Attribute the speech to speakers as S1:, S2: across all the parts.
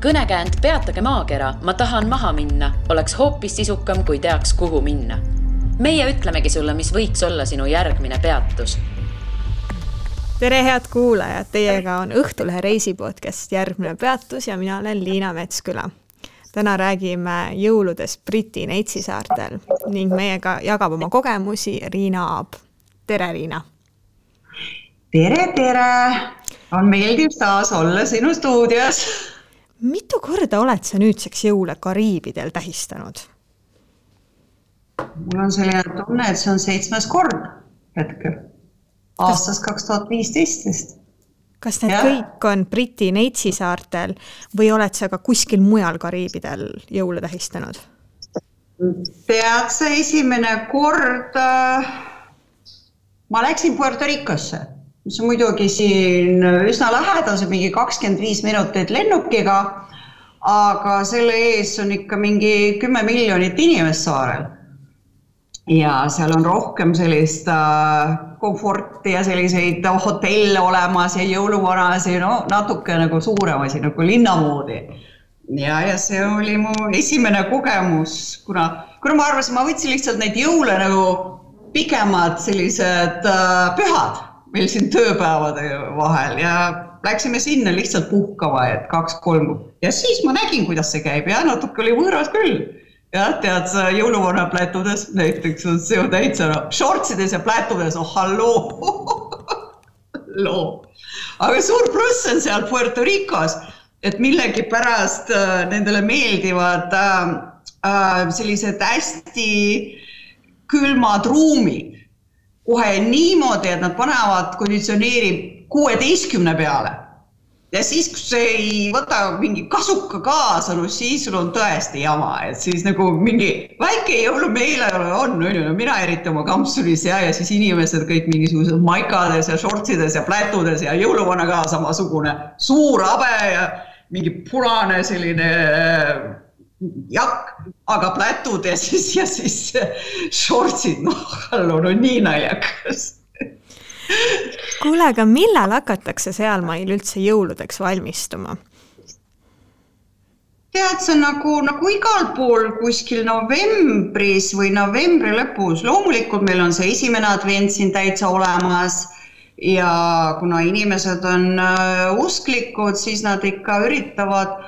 S1: Kõnekäänd Peatage maakera, ma tahan maha minna, oleks hoopis sisukam, kui teaks, kuhu minna. Meie ütlemegi sulle, mis võiks olla sinu järgmine peatus.
S2: Tere head kuulajad, teiega on Õhtulehe reisipodcast Järgmine peatus ja mina olen Liina Metsküla. Täna räägime jõuludest Briti Neitsi-saartel ning meiega jagab oma kogemusi Riina Aab. Tere, Riina!
S3: Tere! On meeldiv taas olla sinu stuudios.
S2: Mitu korda oled sa nüüdseks jõule Kariibidel tähistanud?
S3: Mul on selline tunne, et see on 7. kord hetkel. Aastas 2015.
S2: Kas need kõik on Briti Neitsi-saartel või oled sa ka kuskil mujal Kariibidel jõule tähistanud?
S3: Tead sa esimene kord, ma läksin Puerto Ricosse, mis on muidugi siin üsna lähedal, see mingi 25 minutit lennukiga, aga selle ees on ikka mingi 10 miljonit inimest saarel. Ja seal on rohkem sellist komforti ja selliseid hotelle olemas ja jõuluvanasi, natuke nagu suuremasi, nagu linnamoodi. Ja see oli mu esimene kogemus, kuna ma arvasin, ma võtsin lihtsalt neid jõule nagu pikemad sellised pühad meil siin tööpäevade vahel ja läksime sinna lihtsalt puhkama, et 2-3. Ja siis ma nägin, kuidas see käib ja natuke oli võõras küll. Ja tead sa jõuluvana plätudes, näiteks on see täitsa shortsides ja plätudes, halloo. Aga suur pluss on seal Puerto Ricos, et millegi pärast nendele meeldivad sellised hästi külmad ruumid. Kohe niimoodi, et nad panevad konditsioneeri 16 peale. Ja siis, kui see ei võta mingi kasuka kaasa, siis sul on tõesti jama. Et siis nagu mingi väike jõulumeele on, mina eriti oma kampsulis ja siis inimesed kõik mingisugused maikades ja shortsides ja plätudes ja jõuluvana ka samasugune suur habe ja mingi punane selline jakk, aga plätud ja siis shortsid, nii naljakas.
S2: Kuule, aga millal hakatakse seal meil üldse jõuludeks valmistuma?
S3: Tead, see on nagu igal pool kuskil novembris või novembri lõpus. Loomulikult meil on see esimene advent siin täitsa olemas ja kuna inimesed on usklikud, siis nad ikka üritavad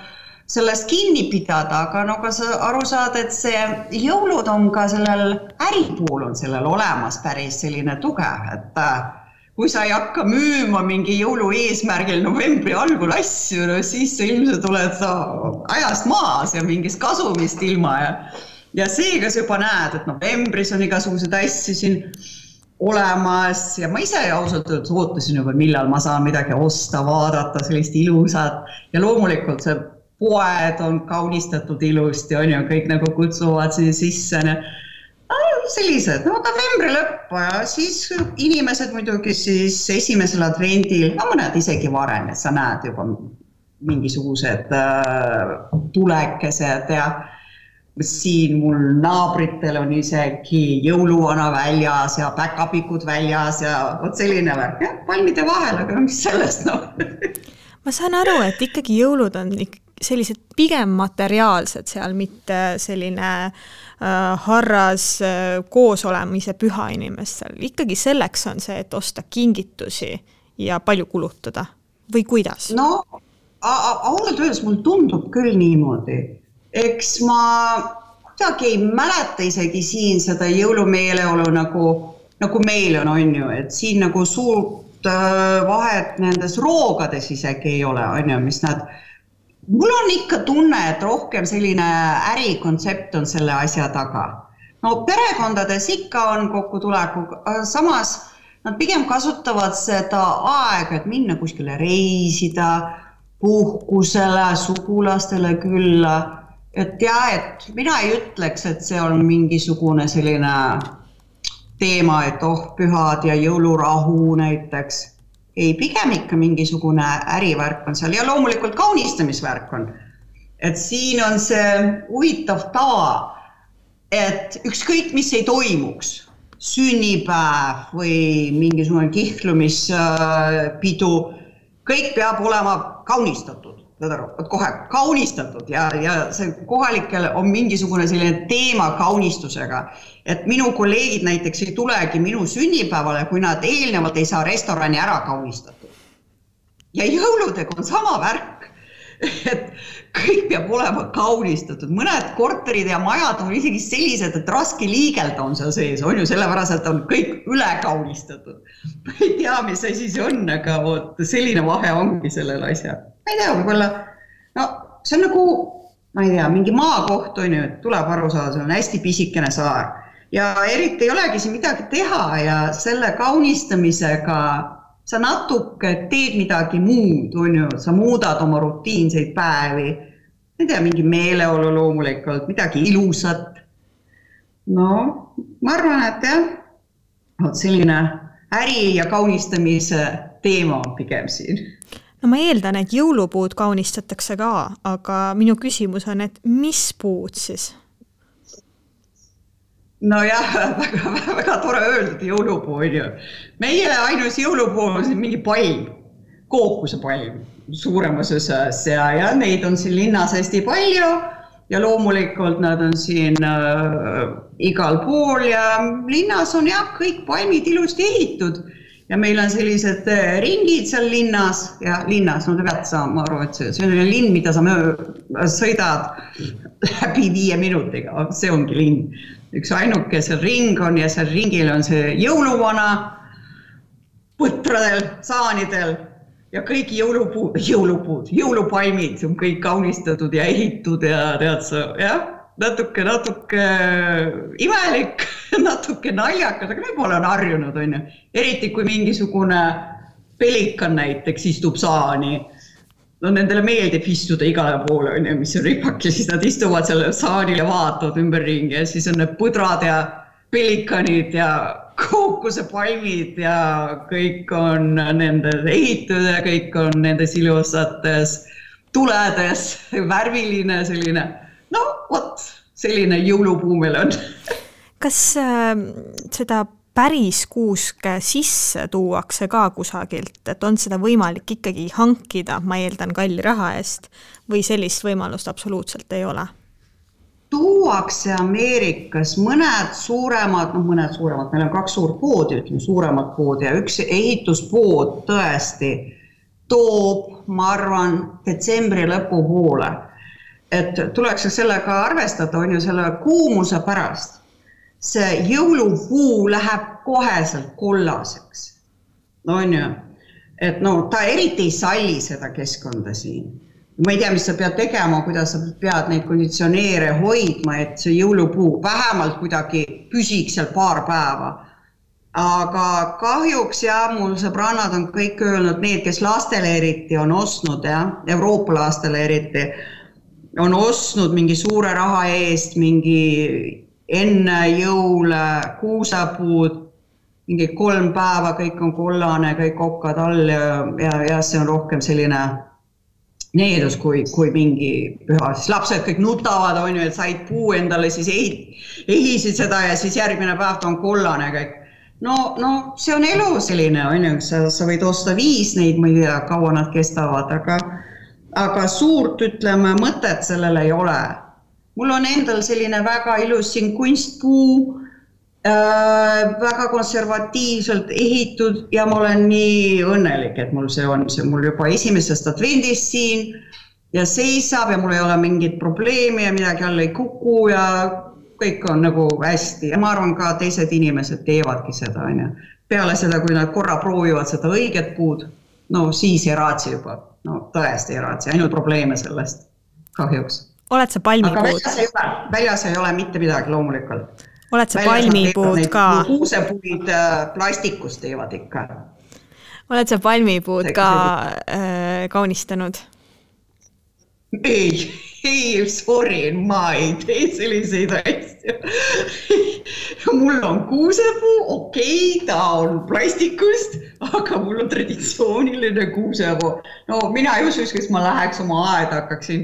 S3: sellest kinni pidada, aga ka sa aru saad, et see jõulud on ka sellel äripool on sellel olemas päris selline tugev, et kui sa ei hakka müüma mingi jõulu eesmärgil novembri algul asju, siis sa ilmselt oled ajast maas ja mingist kasumist ilma. Ja seega sa juba näed, et novembris on igasugused asju siin olemas ja ma ise ausalt ootasin juba, millal ma saan midagi osta, vaadata sellist ilusat ja loomulikult see poed on kaunistatud ilusti, on ju, kõik nagu kutsuvad sisse. Sellised, novembri lõppu ja siis inimesed muidugi siis esimesel advendil, mõned isegi varem, et sa näed juba mingisugused tulekesed ja siin mul naabritel on isegi jõuluvana väljas ja päkapikud väljas ja selline värk, palmide vahel, aga mis sellest
S2: Ma saan aru, et ikkagi jõulud on sellised pigem materiaalsed seal, mitte selline harras koos olemise püha inimestel. Ikkagi selleks on see, et osta kingitusi ja palju kulutada. Või kuidas?
S3: Ausalt öeldes mul tundub küll niimoodi. Eks ma kuidagi ei mäleta isegi siin seda jõulumeeleolu nagu meil on ju, et siin nagu suurt vahet nendes roogades isegi ei ole, on ju, mis nad Mul on ikka tunne, et rohkem selline ärikonsept on selle asja taga. Perekondades ikka on kokkutuleku, samas nad pigem kasutavad seda aega, et minna kuskile reisida, puhkusele, sugulastele külla. Et mina ei ütleks, et see on mingisugune selline teema, et pühad ja jõulurahu näiteks. Ei, pigem ikka mingisugune ärivärk on seal ja loomulikult kaunistamisvärk on. Et siin on see huvitav tava, et ükskõik mis ei toimuks, sünnipäev või mingisugune kihlumispidu, kõik peab olema kaunistatud. kohe kaunistatud ja see kohalikel on mingisugune selline teema kaunistusega, et minu kolleegid näiteks ei tulegi minu sünnipäevale, kui nad eelnevalt ei saa restorani ära kaunistatud. Ja jõuludega on sama värk, et kõik peab olema kaunistatud. Mõned korterid ja majad on isegi sellised, et raske liigelda on seal sees, on ju sellepärast, et on kõik üle kaunistatud. Ma ei tea, mis asi see on, aga selline vahe ongi sellel asja. Ma ei tea, võib-olla, no see on nagu, ma ei tea, mingi maakoht on ju, et tuleb aru saada, see on hästi pisikene saar. Ja eriti ei olegi siin midagi teha ja selle kaunistamisega sa natuke teed midagi muud, on ju, sa muudad oma rutiinseid päevi, ei tea, mingi meeleolu loomulikult, midagi ilusat. No, ma arvan, et jah, selline äri ja kaunistamise teema on pigem siin.
S2: No ma eeldan, et jõulupuud kaunistatakse ka, aga minu küsimus on, et mis puud siis?
S3: No jah, väga tore öeldud jõulupuu on ju. Meie ainus jõulupuu on siin mingi palm, kookuse palm suuremas osas ja neid on siin linnas hästi palju ja loomulikult nad on siin igal pool ja linnas on jah kõik palmid ilusti ehitud ja meil on sellised ringid seal linnas ja linnas, no te peate saama aru, et see on linn, mida sa sõidad läbi 5 minutiga, see ongi linn. Üks ainuke seal ring on ja seal ringil on see jõuluvana põtradel, saanidel ja kõik jõulupalmid on kõik kaunistatud ja ehitud ja tead sa, jah, natuke imelik, natuke naljakas, aga võib-olla on harjunud, on ju. Eriti kui mingisugune pelikan näiteks istub saani. No nendele meeldib istuda igale poole, mis on ripak ja siis nad istuvad selle saanil ja vaatavad ümberringi ja siis on need põdrad ja pelikanid ja kookuse palmid ja kõik on nende ehitud ja kõik on nendes ilusates tuledes, värviline selline, no vot, selline jõulupuu meil on.
S2: Kas seda päris kuuske sisse tuuakse ka kusagilt, et on seda võimalik ikkagi hankida, ma eeldan kalli raha eest, või sellist võimalust absoluutselt ei ole?
S3: Tuuakse Ameerikas mõned suuremad, meil on 2 suurt poodi, suuremad poodi ja üks ehituspood tõesti toob, ma arvan, detsembri lõpu poole. Et tuleks sellega arvestada, on ju selle kuumuse pärast. See jõulupuu läheb koheselt kollaseks. No on ju, et no ta eriti ei salli seda keskkonda siin. Ma ei tea, mis sa pead tegema, kuidas sa pead neid konditsioneere hoidma, et see jõulupuu vähemalt kuidagi püsiks seal paar päeva. Aga kahjuks mul sõbrannad on kõik öelnud, need, kes lastele eriti on ostnud, Euroopa lastele eriti, on ostnud mingi suure raha eest, mingi enne jõule, kuusepuud, mingi 3 päeva, kõik on kollane, kõik okkad all ja see on rohkem selline needus kui mingi püha. Siis lapsed kõik nutavad, on ju, et said puu endale, siis ehisid seda ja siis järgmine päev ta on kollane kõik. No see on elu selline, on ju, sa võid osta 5 neid, ma ei tea, kaua nad kestavad, aga suurt, ütleme, mõtet sellele ei ole. Mul on endal selline väga ilus siin kunstpuu, väga konservatiivselt ehitud ja ma olen nii õnnelik, et mul see on. See mul juba esimesest advendist siin ja seisab ja mul ei ole mingit probleemi ja midagi alla ei kuku ja kõik on nagu hästi. Ja ma arvan ka teised inimesed teevadki seda. Peale seda, kui nad korra proovivad seda õiget puud, no siis ei raatsi juba. No tõesti ei raatsi, ainult probleeme sellest kahjuks.
S2: Oled sa palmipuud?
S3: Aga väljas ei ole mitte midagi loomulikult.
S2: Oled sa palmipuud ka?
S3: Kuusepuid plastikust teevad ikka.
S2: Oled sa palmipuud ka kaunistanud?
S3: Ei, sorry, ma ei tee selliseid asju. Mul on kuusepuu, okei, ta on plastikust, aga mul on traditsiooniline kuusepuu. No mina ei usu, kes ma läheks oma aeda, hakkaksin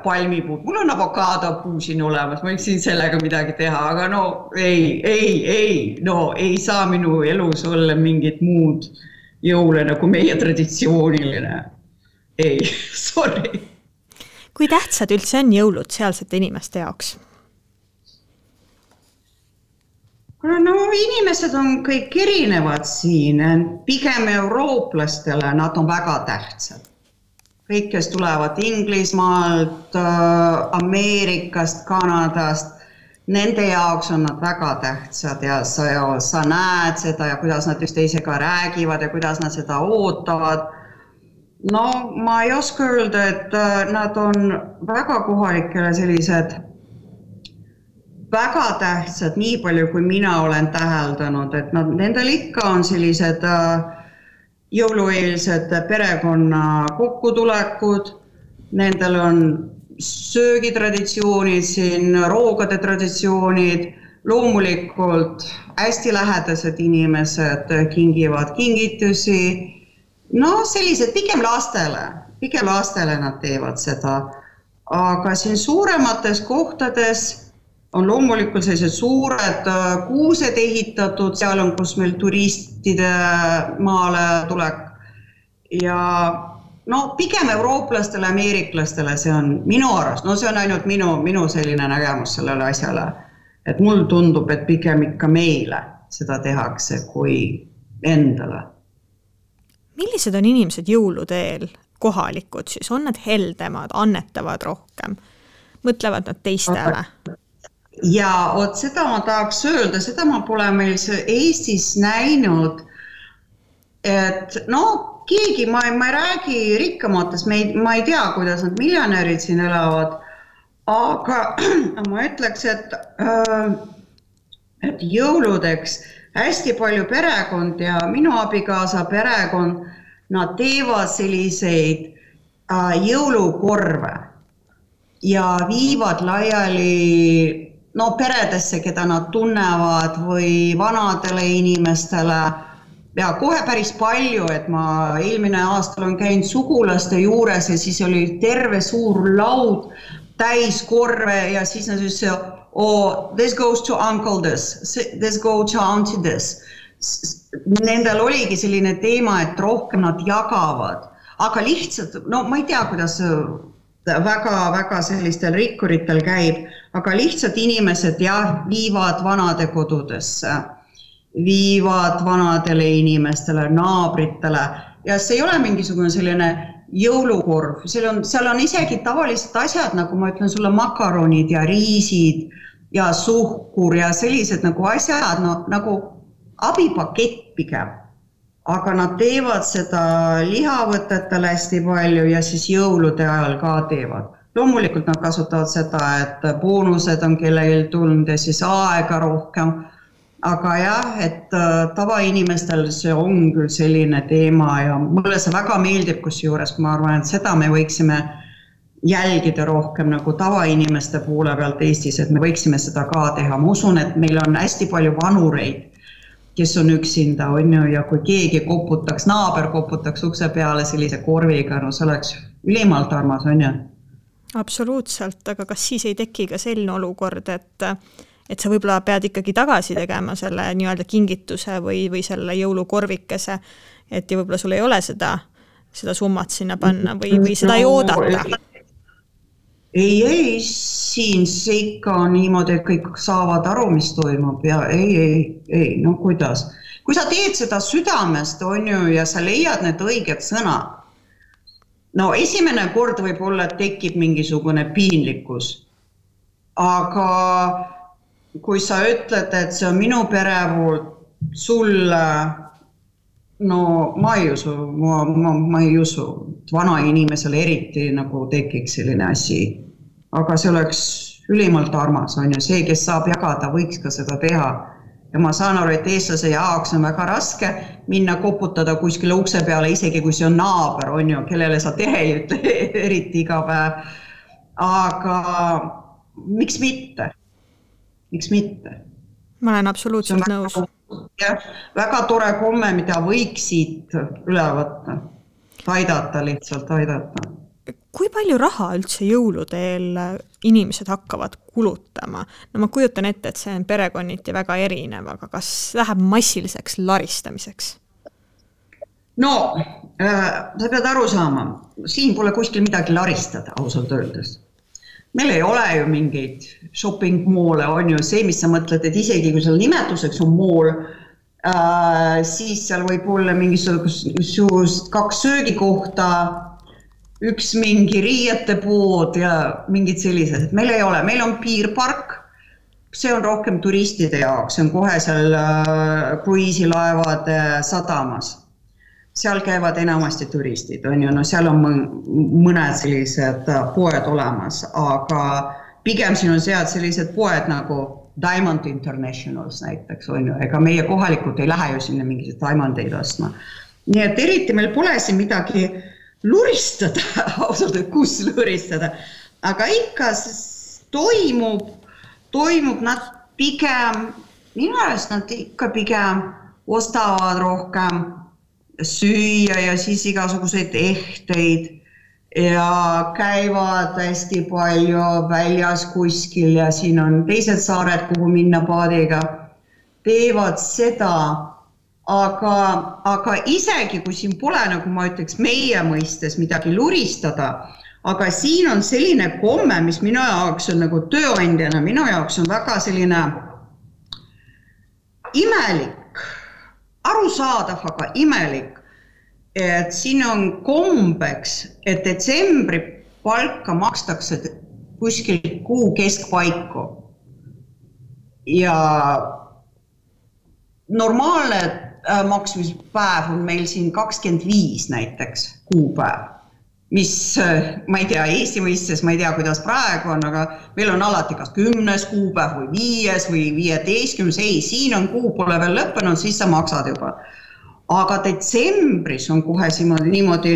S3: palmipuud. Mul on avokaadopuu siin olemas, ma võiksin sellega midagi teha, aga no ei saa minu elus olla mingit muud jõule nagu meie traditsiooniline. ei, sorry.
S2: Kui tähtsad üldse on jõulud sealsete inimeste jaoks?
S3: No inimesed on kõik erinevad siin, pigem eurooplastele nad on väga tähtsad. Kõik, kes tulevad Inglismaalt, Ameerikast, Kanadast, nende jaoks on nad väga tähtsad ja sa näed seda ja kuidas nad üksteisega räägivad ja kuidas nad seda ootavad. No ma ei oska öelda, et nad on väga kohalikele sellised väga tähtsad, nii palju kui mina olen täheldanud, et nendel ikka on sellised jõulueelsed perekonna kokkutulekud, nendel on söögitraditsioonid siin, roogade traditsioonid, loomulikult hästi lähedased inimesed kingivad kingitusi, no sellised pigem lastele nad teevad seda, aga siin suuremates kohtades on loomulikult sellised suured kuused ehitatud, seal on, kus meil turistide maale tulek ja no pigem eurooplastele, ameeriklastele see on minu arust, no see on ainult minu selline nägemus sellele asjale, et mul tundub, et pigem ikka meile seda tehakse kui endale.
S2: Millised on inimesed jõuludeel kohalikud siis? On nad heldemad, annetavad rohkem? Mõtlevad nad teistele?
S3: Ja seda ma tahaks öelda, seda ma pole meil Eestis näinud, et no keegi, ma ei räägi rikkamatest, ma ei tea, kuidas nad miljonärid siin elavad, aga ma ütleks, et jõuludeks hästi palju perekond ja minu abikaasa perekond, nad teevad selliseid jõulukorve ja viivad laiali peredesse, keda nad tunnevad või vanadele inimestele ja kohe päris palju, et ma eelmine aastal on käinud sugulaste juures ja siis oli terve suur laud täis korve ja siis nad ütlesid, this goes to uncle this goes to auntie this. Nendel oligi selline teema, et rohkem nad jagavad, aga lihtsalt, ma ei tea, kuidas väga sellistel rikkuritel käib, aga lihtsalt inimesed viivad vanade kodudesse, viivad vanadele inimestele, naabritele ja see ei ole mingisugune selline jõulukorv, seal on isegi tavalised asjad, nagu ma ütlen sulle, makaronid ja riisid ja suhkur ja sellised nagu asjad, nagu abipakett pigem. Aga nad teevad seda lihavõtetele hästi palju ja siis jõulude ajal ka teevad. Loomulikult nad kasutavad seda, et boonused on kellelgi tulnud ja siis aega rohkem. Aga jah, et tavainimestel see on küll selline teema ja mulle see väga meeldib, kusjuures ma arvan, et seda me võiksime jälgida rohkem nagu tavainimeste poole pealt Eestis, et me võiksime seda ka teha. Ma usun, et meil on hästi palju vanureid, kes on üksinda, ja kui keegi koputaks, naaber koputaks ukse peale sellise korviga, no see oleks ülimalt armas, on ju?
S2: Absoluutselt, aga kas siis ei teki ka selline olukord, et sa võib-olla pead ikkagi tagasi tegema selle nii-öelda kingituse või selle jõulukorvikese, et ja võib-olla sul ei ole seda summat sinna panna või seda ei oodata?
S3: Ei, siin see ikka on niimoodi, et kõik saavad aru, mis toimub ja ei, no kuidas. Kui sa teed seda südamest, on ju, ja sa leiad need õiged sõnad, no esimene kord võib olla, et tekib mingisugune piinlikkus, aga kui sa ütled, et see on minu pere poolt sulle, no ma ei usu, vana inimesele eriti nagu tekiks selline asi, aga see oleks ülimalt armas, on ju, see, kes saab jagada, võiks ka seda teha. Ja ma saan aru, et eestlase jaoks on väga raske minna koputada kuskile ukse peale, isegi kui see on naaber, on ju, kellele sa tere ei ütle eriti iga päev. Aga miks mitte? Miks mitte?
S2: Ma olen absoluutselt nõus.
S3: Väga tore komme, mida võiks siit üle võtta. Lihtsalt aidata.
S2: Kui palju raha üldse jõuludeel inimesed hakkavad kulutama? No ma kujutan ette, et see on perekonniti väga erinev, aga kas läheb massiliseks laristamiseks?
S3: No, sa pead aru saama, siin pole kuskil midagi laristada, ausalt öeldes. Meil ei ole ju mingeid shopping moole, on ju see, mis sa mõtled, et isegi kui seal nimetuseks on mool, siis seal võib olla mingisugust 2 söögikohta, üks mingi riiete pood ja mingid sellised. Meil ei ole, meil on piirpark, see on rohkem turistide jaoks, see on kohe seal kruiisilaevade sadamas. Seal käivad enamasti turistid, on ju, no seal on mõned sellised poed olemas, aga pigem siin on sealt sellised poed nagu Diamond Internationals näiteks, on ju, ega meie kohalikud ei lähe ju sinna mingisugused diamondeid ostma. Nii et eriti meil pole siin midagi luristada, ausalt, kus luristada, aga ikka toimub nad pigem, minu arust nad ikka pigem ostavad rohkem süüa ja siis igasuguseid ehteid ja käivad hästi palju väljas kuskil ja siin on teised saared, kuhu minna paadiga, teevad seda, aga isegi kui siin pole, nagu ma ütleks, meie mõistes midagi luristada, aga siin on selline komme, mis minu jaoks on nagu tööandjana, minu jaoks on väga selline imelik, arusaadav, aga imelik, et siin on kombeks, et detsembri palka makstakse kuskil kuu keskpaiku ja normaalne maksmispäev on meil siin 25 näiteks kuupäev, mis ma ei tea, Eesti mõistes ma ei tea, kuidas praegu on, aga meil on alati kas 10. kuupäev või 5. või 15. Ei, siin on kuu pole veel lõppenud, siis sa maksad juba. Aga detsembris on kohe niimoodi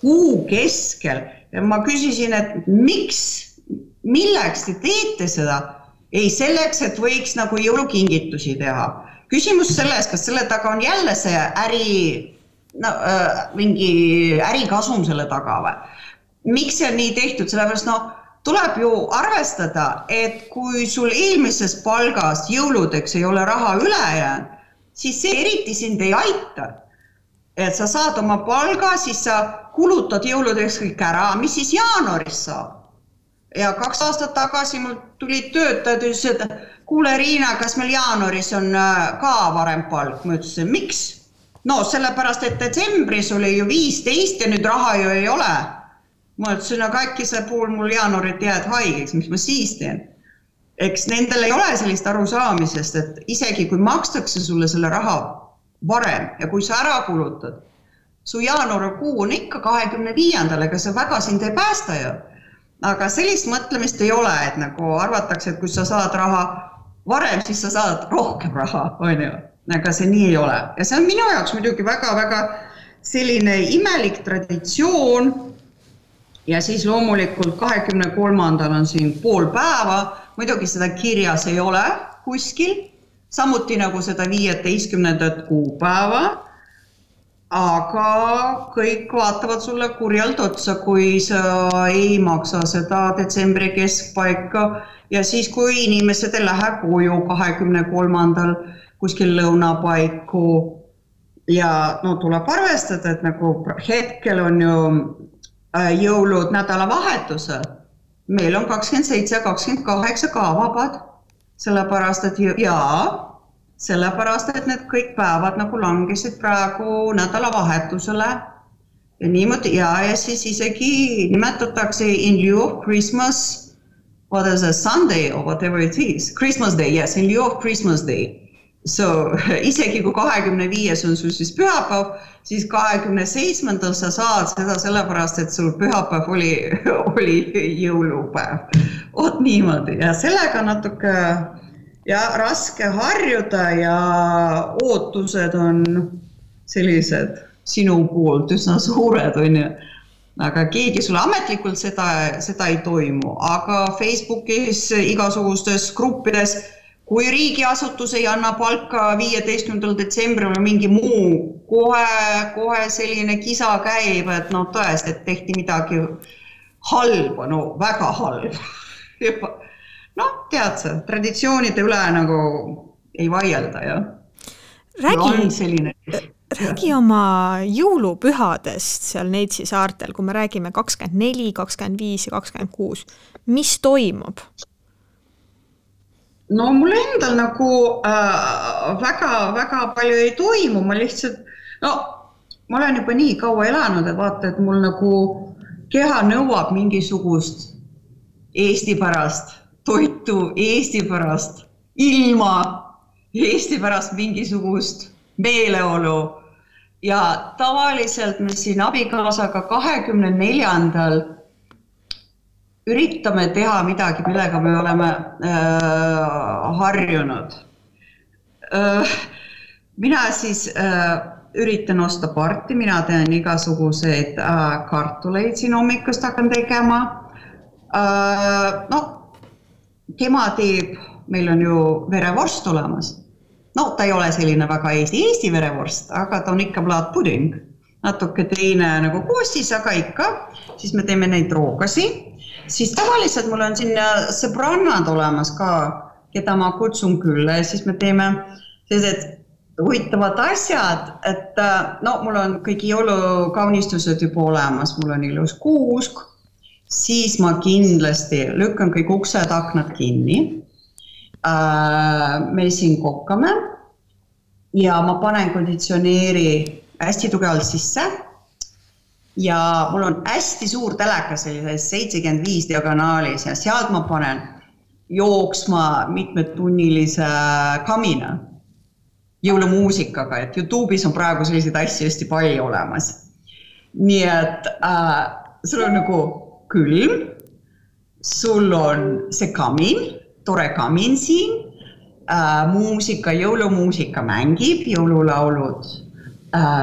S3: kuu keskel ja ma küsisin, et milleks te teete seda? Ei selleks, et võiks nagu jõulukingitusi teha. Küsimus selles, kas selle taga on jälle see mingi ärikasum selle taga või? Miks see on nii tehtud? Sellepärast tuleb ju arvestada, et kui sul eelmises palgas jõuludeks ei ole raha üle jäänud, siis see eriti sind ei aita. Et sa saad oma palga, siis sa kulutad jõuludeks kõik ära, mis siis jaanuaris saab. Ja 2 aastat tagasi mul tulid töötajad ja ütlesid, et kuule Riina, kas meil jaanuaris on ka varem palk? Ma ütlesin, miks? No sellepärast, et detsembris oli ju 15 ja nüüd raha ju ei ole. Ma ütlesin, aga äkki see pool mul jaanuarit jääd haigeks, mis ma siis teen? Eks nendel ei ole sellist arusaamisest, et isegi kui makstakse sulle selle raha varem ja kui sa ära kulutad, su jaanuarikuu on ikka 25. ega see väga sind ei päästa ju. Aga sellist mõtlemist ei ole, et nagu arvatakse, et kui sa saad raha varem, siis sa saad rohkem raha, on ju. Aga see nii ei ole. Ja see on minu jaoks muidugi väga-väga selline imelik traditsioon ja siis loomulikult 23. on siin pool päeva, muidugi seda kirjas ei ole kuskil, samuti nagu seda 15. kuupäeva, aga kõik vaatavad sulle kurjalt otsa, kui sa ei maksa seda detsembri keskpaika ja siis, kui inimesed ei lähe koju 23. kuskil lõunapaiku ja tuleb arvestada, et nagu hetkel on ju jõulud nädalavahetusel. Meil on 27 ja 28 ka vabad, sellepärast, et need kõik päevad nagu langesid praegu nädalavahetusele ja niimoodi ja siis isegi nimetatakse in lieu of Christmas, what is a Sunday or whatever it is, Christmas Day, yes, in lieu of Christmas Day. So isegi kui 25 on sul siis pühapäev, siis 27. sa saad seda sellepärast, et sul pühapäev oli jõulupäev. Oot niimoodi ja sellega natuke raske harjuda ja ootused on sellised sinu poolt üsna suured, on ju. Aga keegi sulle ametlikult seda ei toimu, aga Facebookis igasugustes gruppides, kui riigiasutus ei anna palka 15. detsembril mingi muu, kohe selline kisa käib, et tõesti, et tehti midagi halba, väga halba. Tead sa, traditsioonide üle nagu ei vaielda, jah.
S2: räägi oma jõulupühadest seal Neitsi saartel, kui me räägime 24, 25 ja 26. Mis toimub?
S3: No mul endal nagu väga palju ei toimu, ma lihtsalt, ma olen juba nii kaua elanud, et vaata, et mul nagu keha nõuab mingisugust Eesti pärast toitu, Eesti pärast ilma, Eesti pärast mingisugust meeleolu ja tavaliselt me siin abikaasaga 24. üritame teha midagi, millega me oleme harjunud. Mina siis üritan osta parti, mina teen igasuguseid kartuleid siin hommikust hakkan tegema. Tema teeb, meil on ju verevorst olemas. Ta ei ole selline väga Eesti verevorst, aga ta on ikka plaatpuding. Natuke teine nagu koostis, aga ikka. Siis me teeme neid roogasi. Siis tavaliselt mul on siin sõbrannad olemas ka, keda ma kutsun külla ja siis me teeme sellised huvitavad asjad, et mul on kõik jõulukaunistused juba olemas, mul on ilus kuusk, siis ma kindlasti lükkan kõik uksed, aknad kinni. Me siin kokkame ja ma panen konditsioneeri hästi tugevalt sisse. Ja mul on hästi suur teleka sellises 75 diagonaalis ja sealt ma panen jooksma mitmetunnilise kamina jõulumuusikaga, et YouTube'is on praegu selliseid asju hästi palju olemas. Nii et sul on nagu külm, sul on see kamin, tore kamin siin, jõulumuusika mängib, jõululaulud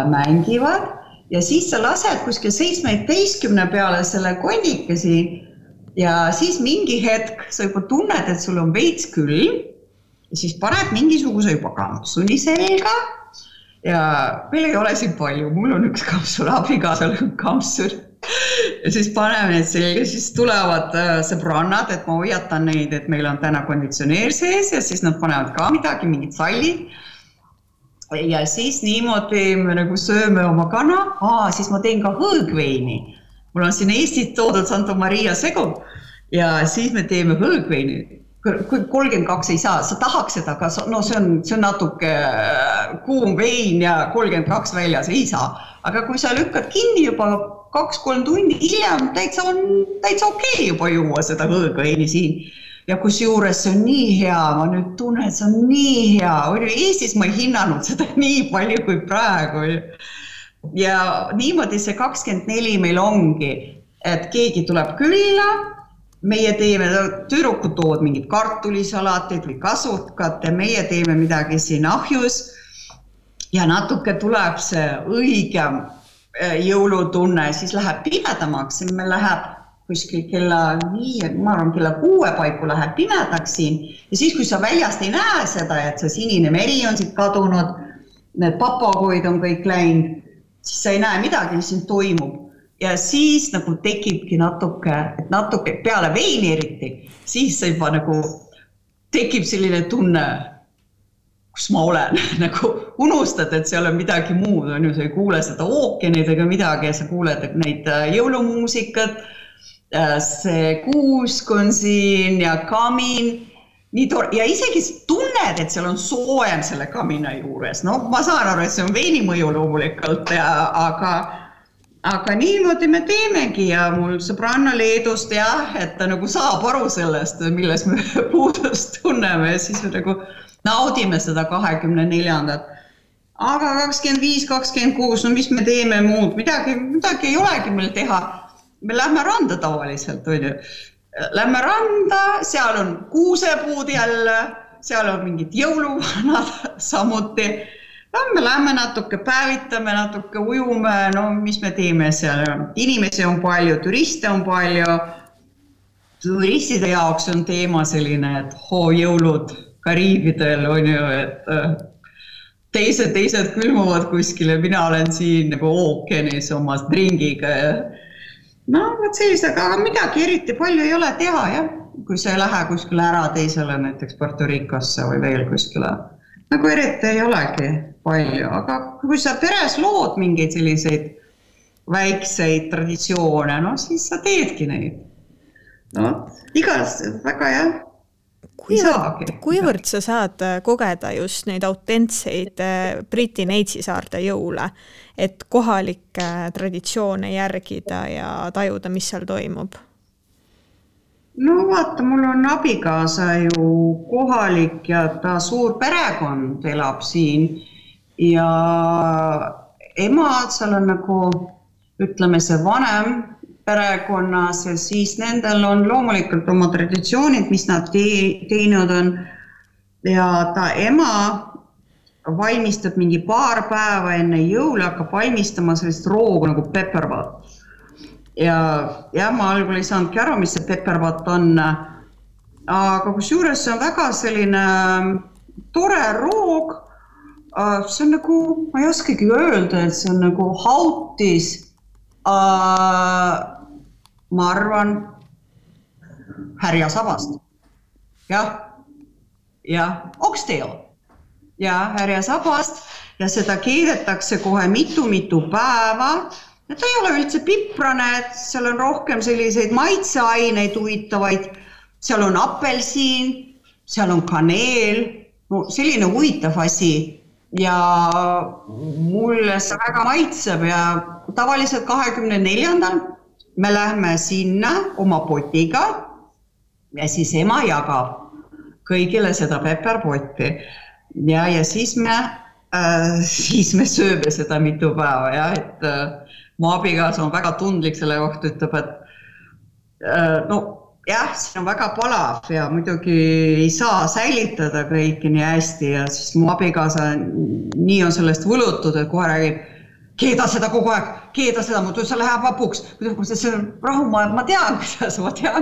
S3: mängivad. Ja siis sa lased kuskil 17 peale selle kondikesi ja siis mingi hetk sa juba tunned, et sul on veits külm ja siis paned mingisuguse juba kampsuni selga ja meil ei ole siin palju, mul on üks kampsun, abikaasal on kampsun ja siis paneme need selga, siis tulevad sõbrannad, et ma hoiatan neid, et meil on täna konditsioneer sees ja siis nad panevad ka midagi, mingid sallid. Ja siis niimoodi me nagu sööme oma kana, siis ma teen ka hõõgveini. Mul on siin Eestit toodud Santa Maria segu ja siis me teeme hõõgveini. Kui 32 ei saa, sa tahaks seda, aga see on natuke kuum vein ja 32 väljas ei saa. Aga kui sa lükkad kinni juba 2-3 tundi hiljem, täitsa okei juba juua seda hõõgveini siin. Ja kus juures see on nii hea, ma nüüd tunnen, et see on nii hea. Eestis ma ei hinnanud seda nii palju kui praegu. Ja niimoodi see 24 meil ongi, et keegi tuleb külla, meie teeme, tüdrukud toovad mingid kartulisalateid või kasutkat ja meie teeme midagi siin ahjus ja natuke tuleb see õigem jõulutunne, siis läheb pimedamaks, meil läheb kuskil kella 5, ma arvan kella 6 paiku läheb pimedaks siin ja siis kui sa väljast ei näe seda, et see sinine meri on siit kadunud, need papagoid on kõik läinud, siis sa ei näe midagi, mis siin toimub ja siis nagu tekibki natuke peale veini eriti, siis sa juba nagu tekib selline tunne, kus ma olen, nagu unustad, et seal on midagi muud, on ju, sa ei kuule seda ookeanid ega midagi ja sa kuuled neid jõulumuusikat, see kuusk on siin ja kamin, ja isegi tunned, et seal on soojem selle kamina juures. Ma saan aru, et see on veini mõju loomulikult, aga niimoodi me teemegi ja mul sõbranna Leedust et ta nagu saab aru sellest, milles me puudust tunneme ja siis me nagu naudime seda 24. Aga 25, 26, mis me teeme muud, midagi ei olegi meil teha. Me lähme randa tavaliselt, lähme randa, seal on kuusepuud jälle, seal on mingid jõuluvanad samuti. Me lähme natuke päevitame, natuke ujume, mis me teeme seal. Inimesi on palju, turiste on palju. Turistide jaoks on teema selline, et jõulud Kariibidel on ju, et teised külmuvad kuskile, mina olen siin nagu ookeanis oma dringiga ja aga midagi eriti palju ei ole teha, jah. Kui sa ei lähe kuskile ära teisele, näiteks Puerto Ricosse või veel kuskile. Nagu eriti ei olegi. palju, aga kui sa peres lood mingeid selliseid väikseid traditsioone, no siis sa teedki neid. No, igas väga jah.
S2: Kuivõrd sa saad kogeda just neid autentseid Briti Neitsi-saarte jõule, et kohalikke traditsioone järgida ja tajuda, mis seal toimub?
S3: No vaata, mul on abikaasa ju kohalik ja ta suur perekond elab siin ja emad seal on nagu, ütleme see vanem perekonnas ja siis nendel on loomulikult oma traditsioonid, mis nad teinud on ja ta ema valmistab mingi paar päeva enne jõule, hakkab valmistama sellist roogu nagu peppervat. Ja ma algul ei saanudki aru, mis see peppervat on, aga kusjuures see on väga selline tore roog, see on nagu, ma ei oskagi öelda, et see on nagu hautis, ma arvan, härjasabast, jah, oxtail, härjasabast ja seda keedetakse kohe mitu päeva. Ja ta ei ole üldse piprane, et seal on rohkem selliseid maitseaineid huvitavaid, seal on apelsiin, seal on kaneel, no selline huvitav asi ja mulle see väga maitseb ja tavaliselt 24. me lähme sinna oma potiga ja siis ema jagab kõigile seda pepperpotti ja siis me sööme seda mitu päeva ja et mu abikaasa on väga tundlik selle kohta, ütleb, et siin on väga palav ja muidugi ei saa säilitada kõiki nii hästi ja siis mu abikaasa nii on sellest võlutud, et kohe räägib, keeda seda kogu aeg, keeda seda, muidu see läheb vapuks. See on rahu, ma tean,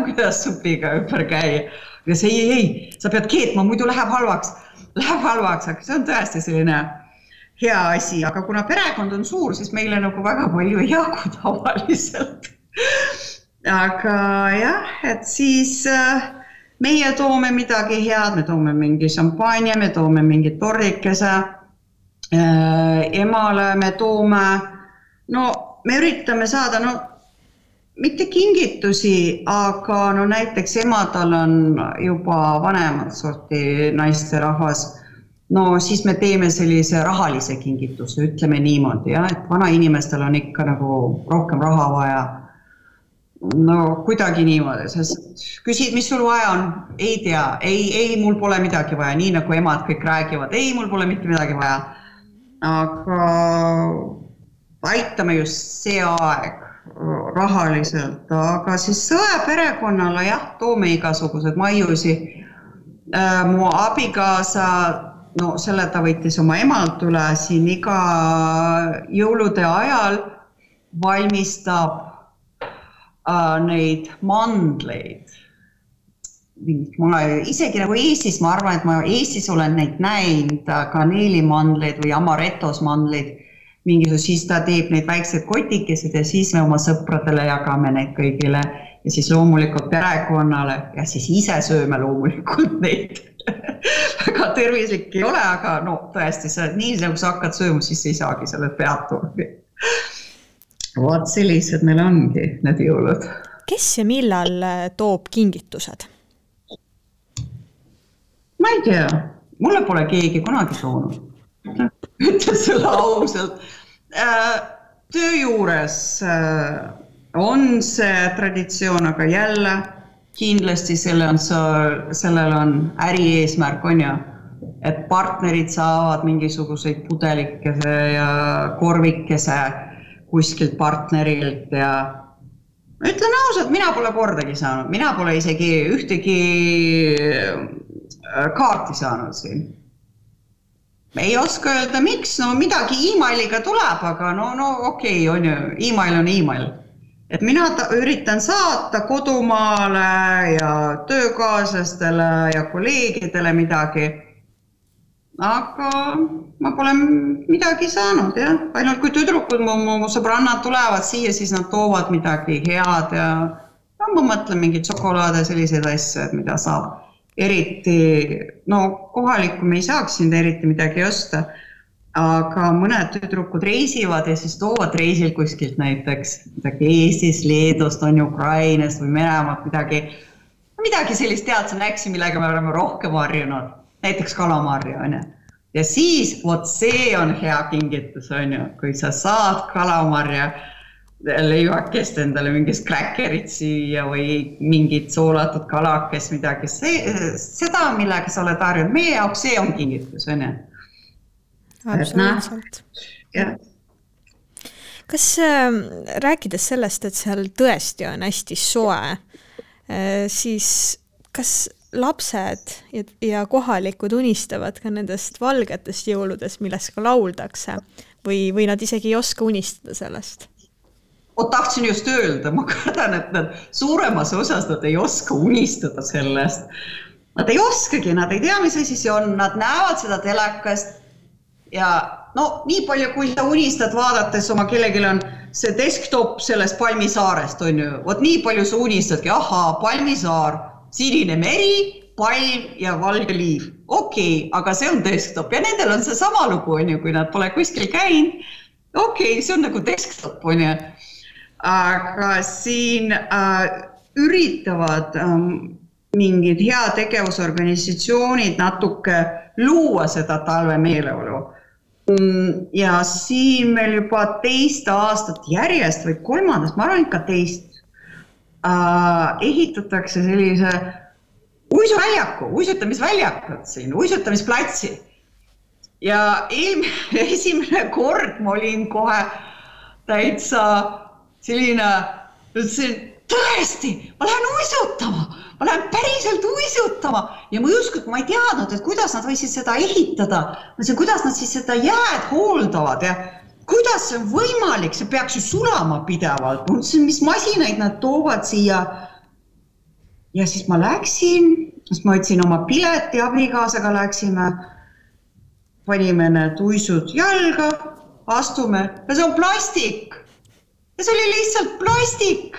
S3: kuidas supiga ümber käia. Ja see ei, sa pead keetma, muidu läheb halvaks, aga see on tõesti selline hea asi, aga kuna perekond on suur, siis meile nagu väga palju ei jagu tavaliselt. Aga jah, et siis meie toome midagi head, me toome mingi šampanja, me toome mingi tordikese, emale me toome, me üritame saada, mitte kingitusi, aga näiteks emadal on juba vanemad sorti naisterahvas, siis me teeme sellise rahalise kingituse, ütleme niimoodi, et vana inimestel on ikka nagu rohkem raha vaja. Kuidagi niimoodi, sest küsid, mis sul vaja on, ei tea, ei, mul pole midagi vaja, nii nagu emad kõik räägivad, ei, mul pole mitte midagi vaja. Aga aitame just see aeg rahaliselt, aga siis sõe perekonnale toome igasugused maiusi. Mu abikaasa selle ta võttis oma emalt üle siin iga jõulude ajal valmistab neid mandleid. Isegi nagu Eestis, ma arvan, et ma Eestis olen neid näinud kaneelimandleid või amarettos mandleid, siis ta teeb neid väiksed kotikesed ja siis me oma sõpradele jagame neid kõigile ja siis loomulikult perekonnale ja siis ise sööme loomulikult neid. Väga tervislik ei ole, aga tõesti, nii nagu sa hakkad sööma, siis ei saagi selle peatugi. Vaat sellised meil ongi need jõulud.
S2: Kes ja millal toob kingitused?
S3: Ma ei tea, mulle pole keegi kunagi toonud. Ütlen selle ausalt. Töö juures on see traditsioon, aga jälle kindlasti sellel on äri eesmärk, on ju, et partnerid saavad mingisuguseid pudelikese ja korvikese kuskilt partnerilt ja ütlen ausalt, mina pole kordagi saanud, mina pole isegi ühtegi kaarti saanud siin. Ei oska öelda, miks, midagi emailiga tuleb, aga okei, on ju, email on email. Et mina üritan saata kodumaale ja töökaaslastele ja kolleegidele midagi, aga ma pole midagi saanud, jah. Ainult kui tüdrukud mu sõbrannad tulevad siia, siis nad toovad midagi head ja ma mõtlen mingi šokolaade selliseid asju, mida saab eriti, kohalikku me ei saaks siin eriti midagi osta, aga mõned tüdrukud reisivad ja siis toovad reisil kuskilt näiteks midagi Eestist, Leedust, on Ukrainast või Venemaalt midagi sellist tead, sa näksi, millega me oleme rohkem harjunud, näiteks kalamarja, on ju. Ja siis, vot see on hea kingitus, on ju, kui sa saad kalamarja leivakest endale mingist kräkkerit süüa või mingit soolatud kalakest, midagi. Seda, millega sa oled harjunud, meie jaoks see on kingitus, on ju.
S2: Absoluutselt. Kas rääkides sellest, et seal tõesti on hästi soe, siis kas lapsed ja kohalikud unistavad ka nendest valgetest jõuludest, millest ka lauldakse või nad isegi ei oska unistada sellest?
S3: Tahtsin just öelda, ma kardan, et nad suuremas osas nad ei oska unistada sellest. Nad ei oskagi, nad ei tea, mis asi see on, nad näevad seda telekast ja nii palju, kui sa unistad vaadates oma kellelgi on see desktop sellest Palmisaarest, on ju, vot nii palju sa unistadki, Palmisaar, sinine meri, palm ja valge liiv. Okei, aga see on desktop ja nendel on see sama lugu, on ju, kui nad pole kuskil käinud. Okei, see on nagu desktop, on ju. Aga siin üritavad mingid heategevusorganisatsioonid natuke luua seda talve meeleolu. Ja siin meil juba 2 aastat järjest või 3, ma arvan ikka 2, ehitatakse sellise uisutamisväljakut siin, uisutamisplatsi. Ja esimene kord ma olin kohe täitsa selline, ütlesin, tõesti, ma lähen päriselt uisutama ja ma ei teadnud, et kuidas nad võisid seda ehitada, kuidas nad siis seda jääd hooldavad ja kuidas see on võimalik, see peaks ju sulama pidevalt, mis masinaid nad toovad siia ja siis ma läksin, siis ma võtsin oma pileti, abikaasaga läksime, panime need uisud jalga, astume ja see on plastik. Ja see oli lihtsalt plastik.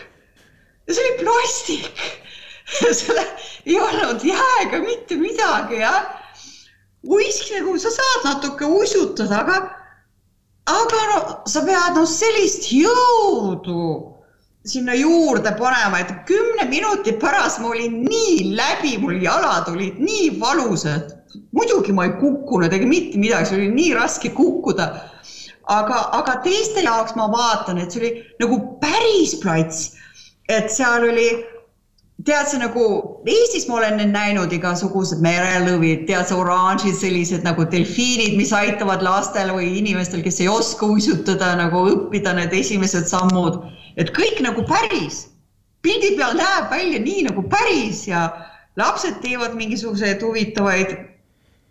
S3: Ja see oli plastik. Selle ei olnud jääga mitte midagi, ja. Nagu sa saad natuke uisutada, aga sa pead sellist jõudu sinna juurde panema, et 10 minuti pärast ma olin nii läbi, mul jalad olid nii valusad. Muidugi ma ei kukkunud, ega mitte midagi, see oli nii raske kukkuda. Aga teiste jaoks ma vaatan, et see oli nagu päris plats, et seal oli, tead see nagu, Eestis ma olen näinud igasugused merelõvid, tead see oranžid, sellised nagu delfiinid, mis aitavad lastel või inimestel, kes ei oska uisutada, nagu õppida need esimesed sammud, et kõik nagu päris. Pildi peal näeb välja nii nagu päris ja lapsed teevad mingisuguseid huvitavaid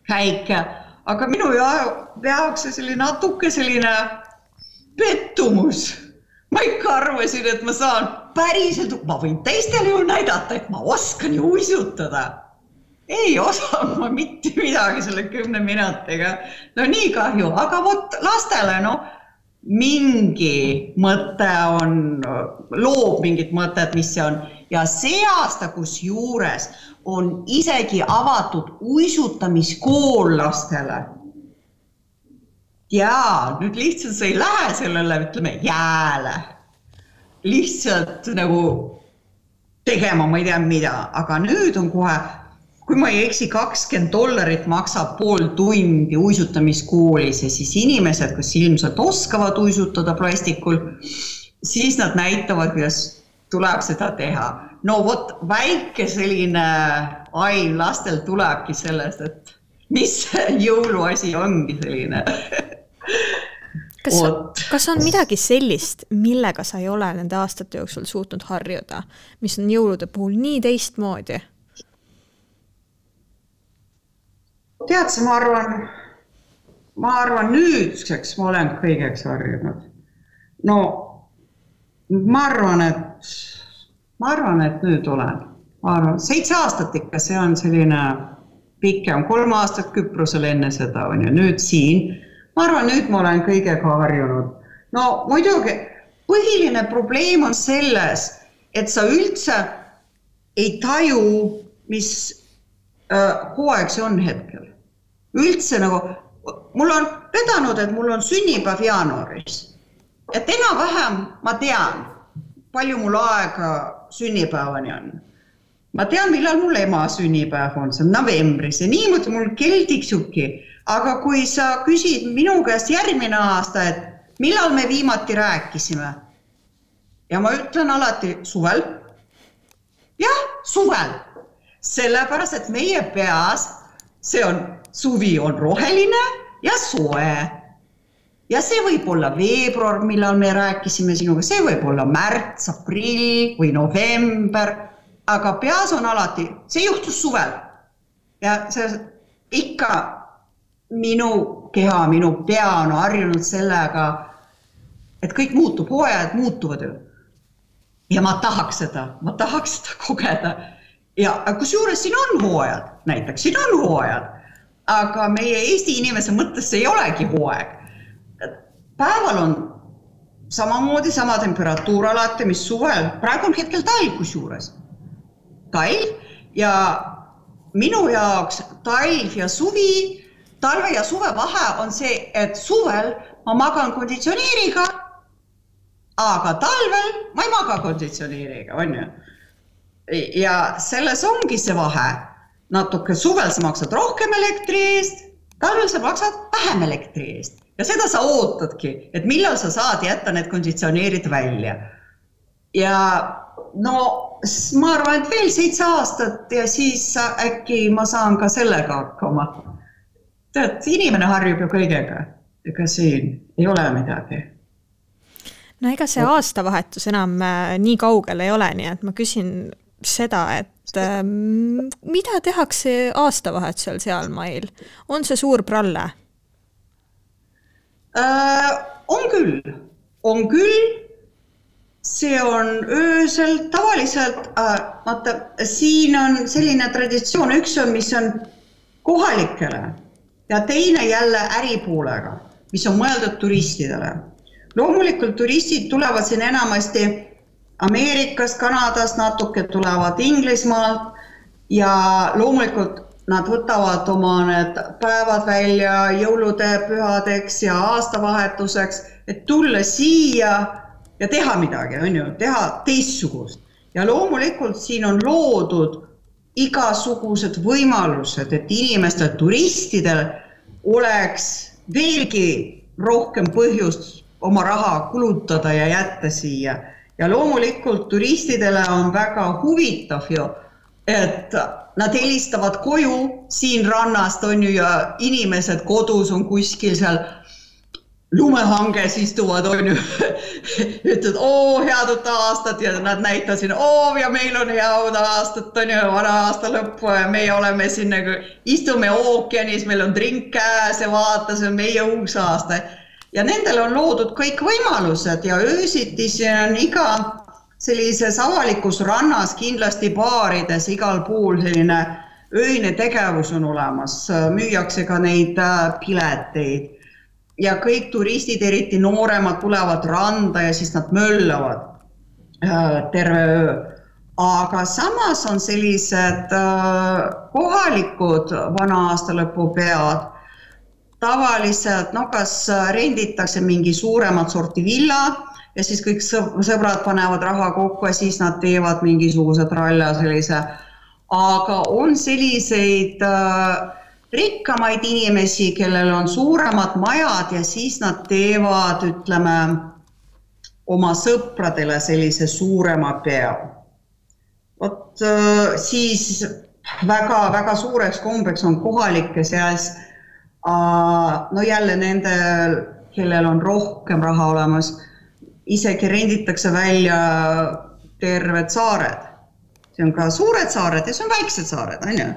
S3: käike. Aga minu jaoks see natuke selline pettumus. Ma ikka arvasin, et ma saan päriselt, ma võin teistele ju näidata, et ma oskan ju uisutada. Ei osanud ma mitte midagi selle 10 minutiga. No nii kahju, aga vot lastele mingi mõte on, loob mingit mõtet, mis see on. Ja see aasta, kus juures on isegi avatud uisutamiskool lastele. Ja nüüd lihtsalt sa ei lähe sellele, ütleme, jääle. Lihtsalt nagu tegema, ma ei tea mida, aga nüüd on kohe, kui ma ei eksi, $20 maksab pool tundi uisutamiskoolis ja siis inimesed, kes ilmselt oskavad uisutada plastikul, siis nad näitavad, kuidas tuleb seda teha. No vot, väike selline aiv lastel tulebki sellest, et mis jõuluasi ongi selline.
S2: Kas on midagi sellist, millega sa ei ole nende aastate jooksul suutnud harjuda, mis on jõulude puhul nii teistmoodi?
S3: Tead sa, ma arvan nüüdseks ma olen kõigeks harjunud. No, ma arvan, et nüüd olen. 7 aastat ikka, see on selline pikem, 3 aastat Küprosel enne seda on ja nüüd siin. Ma arvan, nüüd ma olen kõigega harjunud. No muidugi, põhiline probleem on selles, et sa üldse ei taju, mis hooaeg see on hetkel. Üldse nagu, mul on vedanud, et mul on sünnipäev jaanuaris. Et enam-vähem ma tean, palju mul aega sünnipäevani on. Ma tean, millal mul ema sünnipäev on, see on novembris ja niimoodi mul kell tiksubki. Aga kui sa küsid minu käest järgmine aasta, et millal me viimati rääkisime, ja ma ütlen alati suvel. Jah, suvel. Sellepärast, et meie peas suvi on roheline ja soe. Ja see võib olla veebruar, millal me rääkisime sinuga, see võib olla märts, aprill või november, aga peas on alati, see juhtus suvel. Ja see ikka minu keha, minu pea on harjunud sellega, et kõik muutub, hooajad muutuvad ju. Ja ma tahaks seda kogeda. Ja kusjuures siin on hooajad, näiteks siin on hooajad, aga meie Eesti inimese mõttes ei olegi hooaeg. Päeval on samamoodi sama temperatuur alati, mis suvel. Praegu on hetkel talv kusjuures. Talv ja minu jaoks talv ja suvi, talve ja suve vahe on see, et suvel ma magan konditsioneeriga, aga talvel ma ei maga konditsioneeriga, on ju. Ja selles ongi see vahe. Natuke suvel sa maksad rohkem elektri eest, talvel sa maksad vähem elektri eest. Ja seda sa ootadki, et millal sa saad jätta need konditsioneerid välja. Ja no, ma arvan, et veel 7 aastat ja siis äkki ma saan ka sellega hakkama. Tead, inimene harjub ju kõigega, ega siin ei ole midagi.
S2: No ega see aastavahetus enam nii kaugel ei ole, nii et ma küsin seda, et mida tehakse aastavahetusel seal mail? On see suur pralle?
S3: On küll. See on öösel tavaliselt, siin on selline traditsioon, üks on, mis on kohalikele ja teine jälle äripoolega, mis on mõeldud turistidele. Loomulikult turistid tulevad siin enamasti Ameerikast, Kanadast, natuke tulevad Inglismaalt ja loomulikult nad võtavad oma need päevad välja jõulude pühadeks ja aastavahetuseks, et tulla siia ja teha midagi, on ju, teha teistsugust. Ja loomulikult siin on loodud igasugused võimalused, et inimestel, turistidel oleks veelgi rohkem põhjust oma raha kulutada ja jätta siia. Ja loomulikult turistidele on väga huvitav ju, et nad helistavad koju siin rannast on ju ja inimesed kodus on kuskil seal lumehanges istuvad on ju. Ütlevad, head uut aastat ja nad näitasid, ja meil on head aastat on ju vana aasta lõppu ja meie oleme siin nagu istume ookeanis, meil on drink käes ja vaata, see on meie uus aasta. Ja nendel on loodud kõik võimalused ja öösiti siin on iga sellises avalikus rannas, kindlasti baarides, igal pool selline öine tegevus on olemas, müüakse ka neid pileteid ja kõik turistid, eriti nooremad, tulevad randa ja siis nad möllavad terve öö. Aga samas on sellised kohalikud vana aasta lõpu pead, tavaliselt, kas renditakse mingi suuremat sorti villa ja siis kõik sõbrad panevad raha kokku ja siis nad teevad mingisugused ralla sellise. Aga on selliseid rikkamaid inimesi, kellel on suuremad majad ja siis nad teevad, ütleme, oma sõpradele sellise suurema pea. Siis väga suureks kombeks on kohalike seas jälle nendel, kellel on rohkem raha olemas, isegi renditakse välja terved saared. See on ka suured saared ja see on väiksed saared, on ju.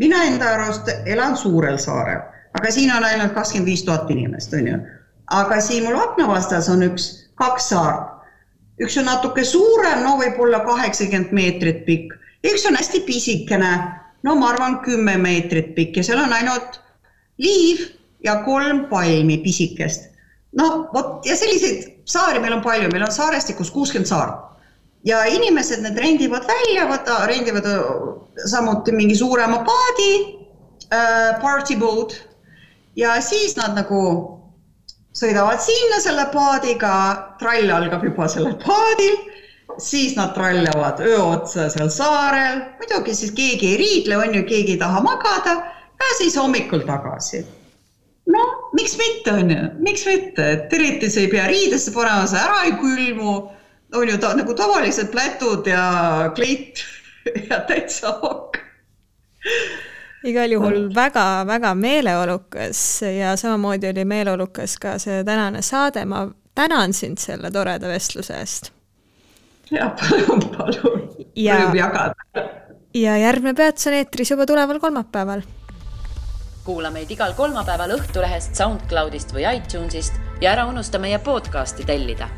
S3: Mina enda arust elan suurel saarel, aga siin on ainult 25 000 inimest, on ju. Aga siin mul akna vastas on 2 saart. Üks on natuke suurem, võib-olla 80 meetrit pikk. Üks on hästi pisikene, ma arvan 10 meetrit pikk ja seal on ainult liiv ja 3 palmi pisikest. Ja selliseid saari meil on palju, meil on saarestikus 60 saart. Ja inimesed need rendivad välja, rendivad samuti mingi suurema paadi, party boat, ja siis nad nagu sõidavad sinna selle paadiga, trall algab juba sellel paadil, siis nad trallavad öö otsa seal saarel, muidugi siis keegi ei riidle, on ju, keegi ei taha magada ja siis hommikul tagasi. No, miks mitte, on ju, miks mitte, et eriti see ei pea riidesse panema, see ära ei külmu, on ju nagu tavalised plätud ja kleit ja täitsa ok.
S2: Igal juhul väga-väga meeleolukas ja samamoodi oli meeleolukas ka see tänane saade. Ma tänan sind selle toreda vestluse eest.
S3: Ja, palun. Võib jagada.
S2: Ja järgmine peats on eetris juba tuleval kolmapäeval.
S1: Kuula meid igal kolmapäeval Õhtulehest, SoundCloudist või iTunesist ja ära unusta meie podcasti tellida.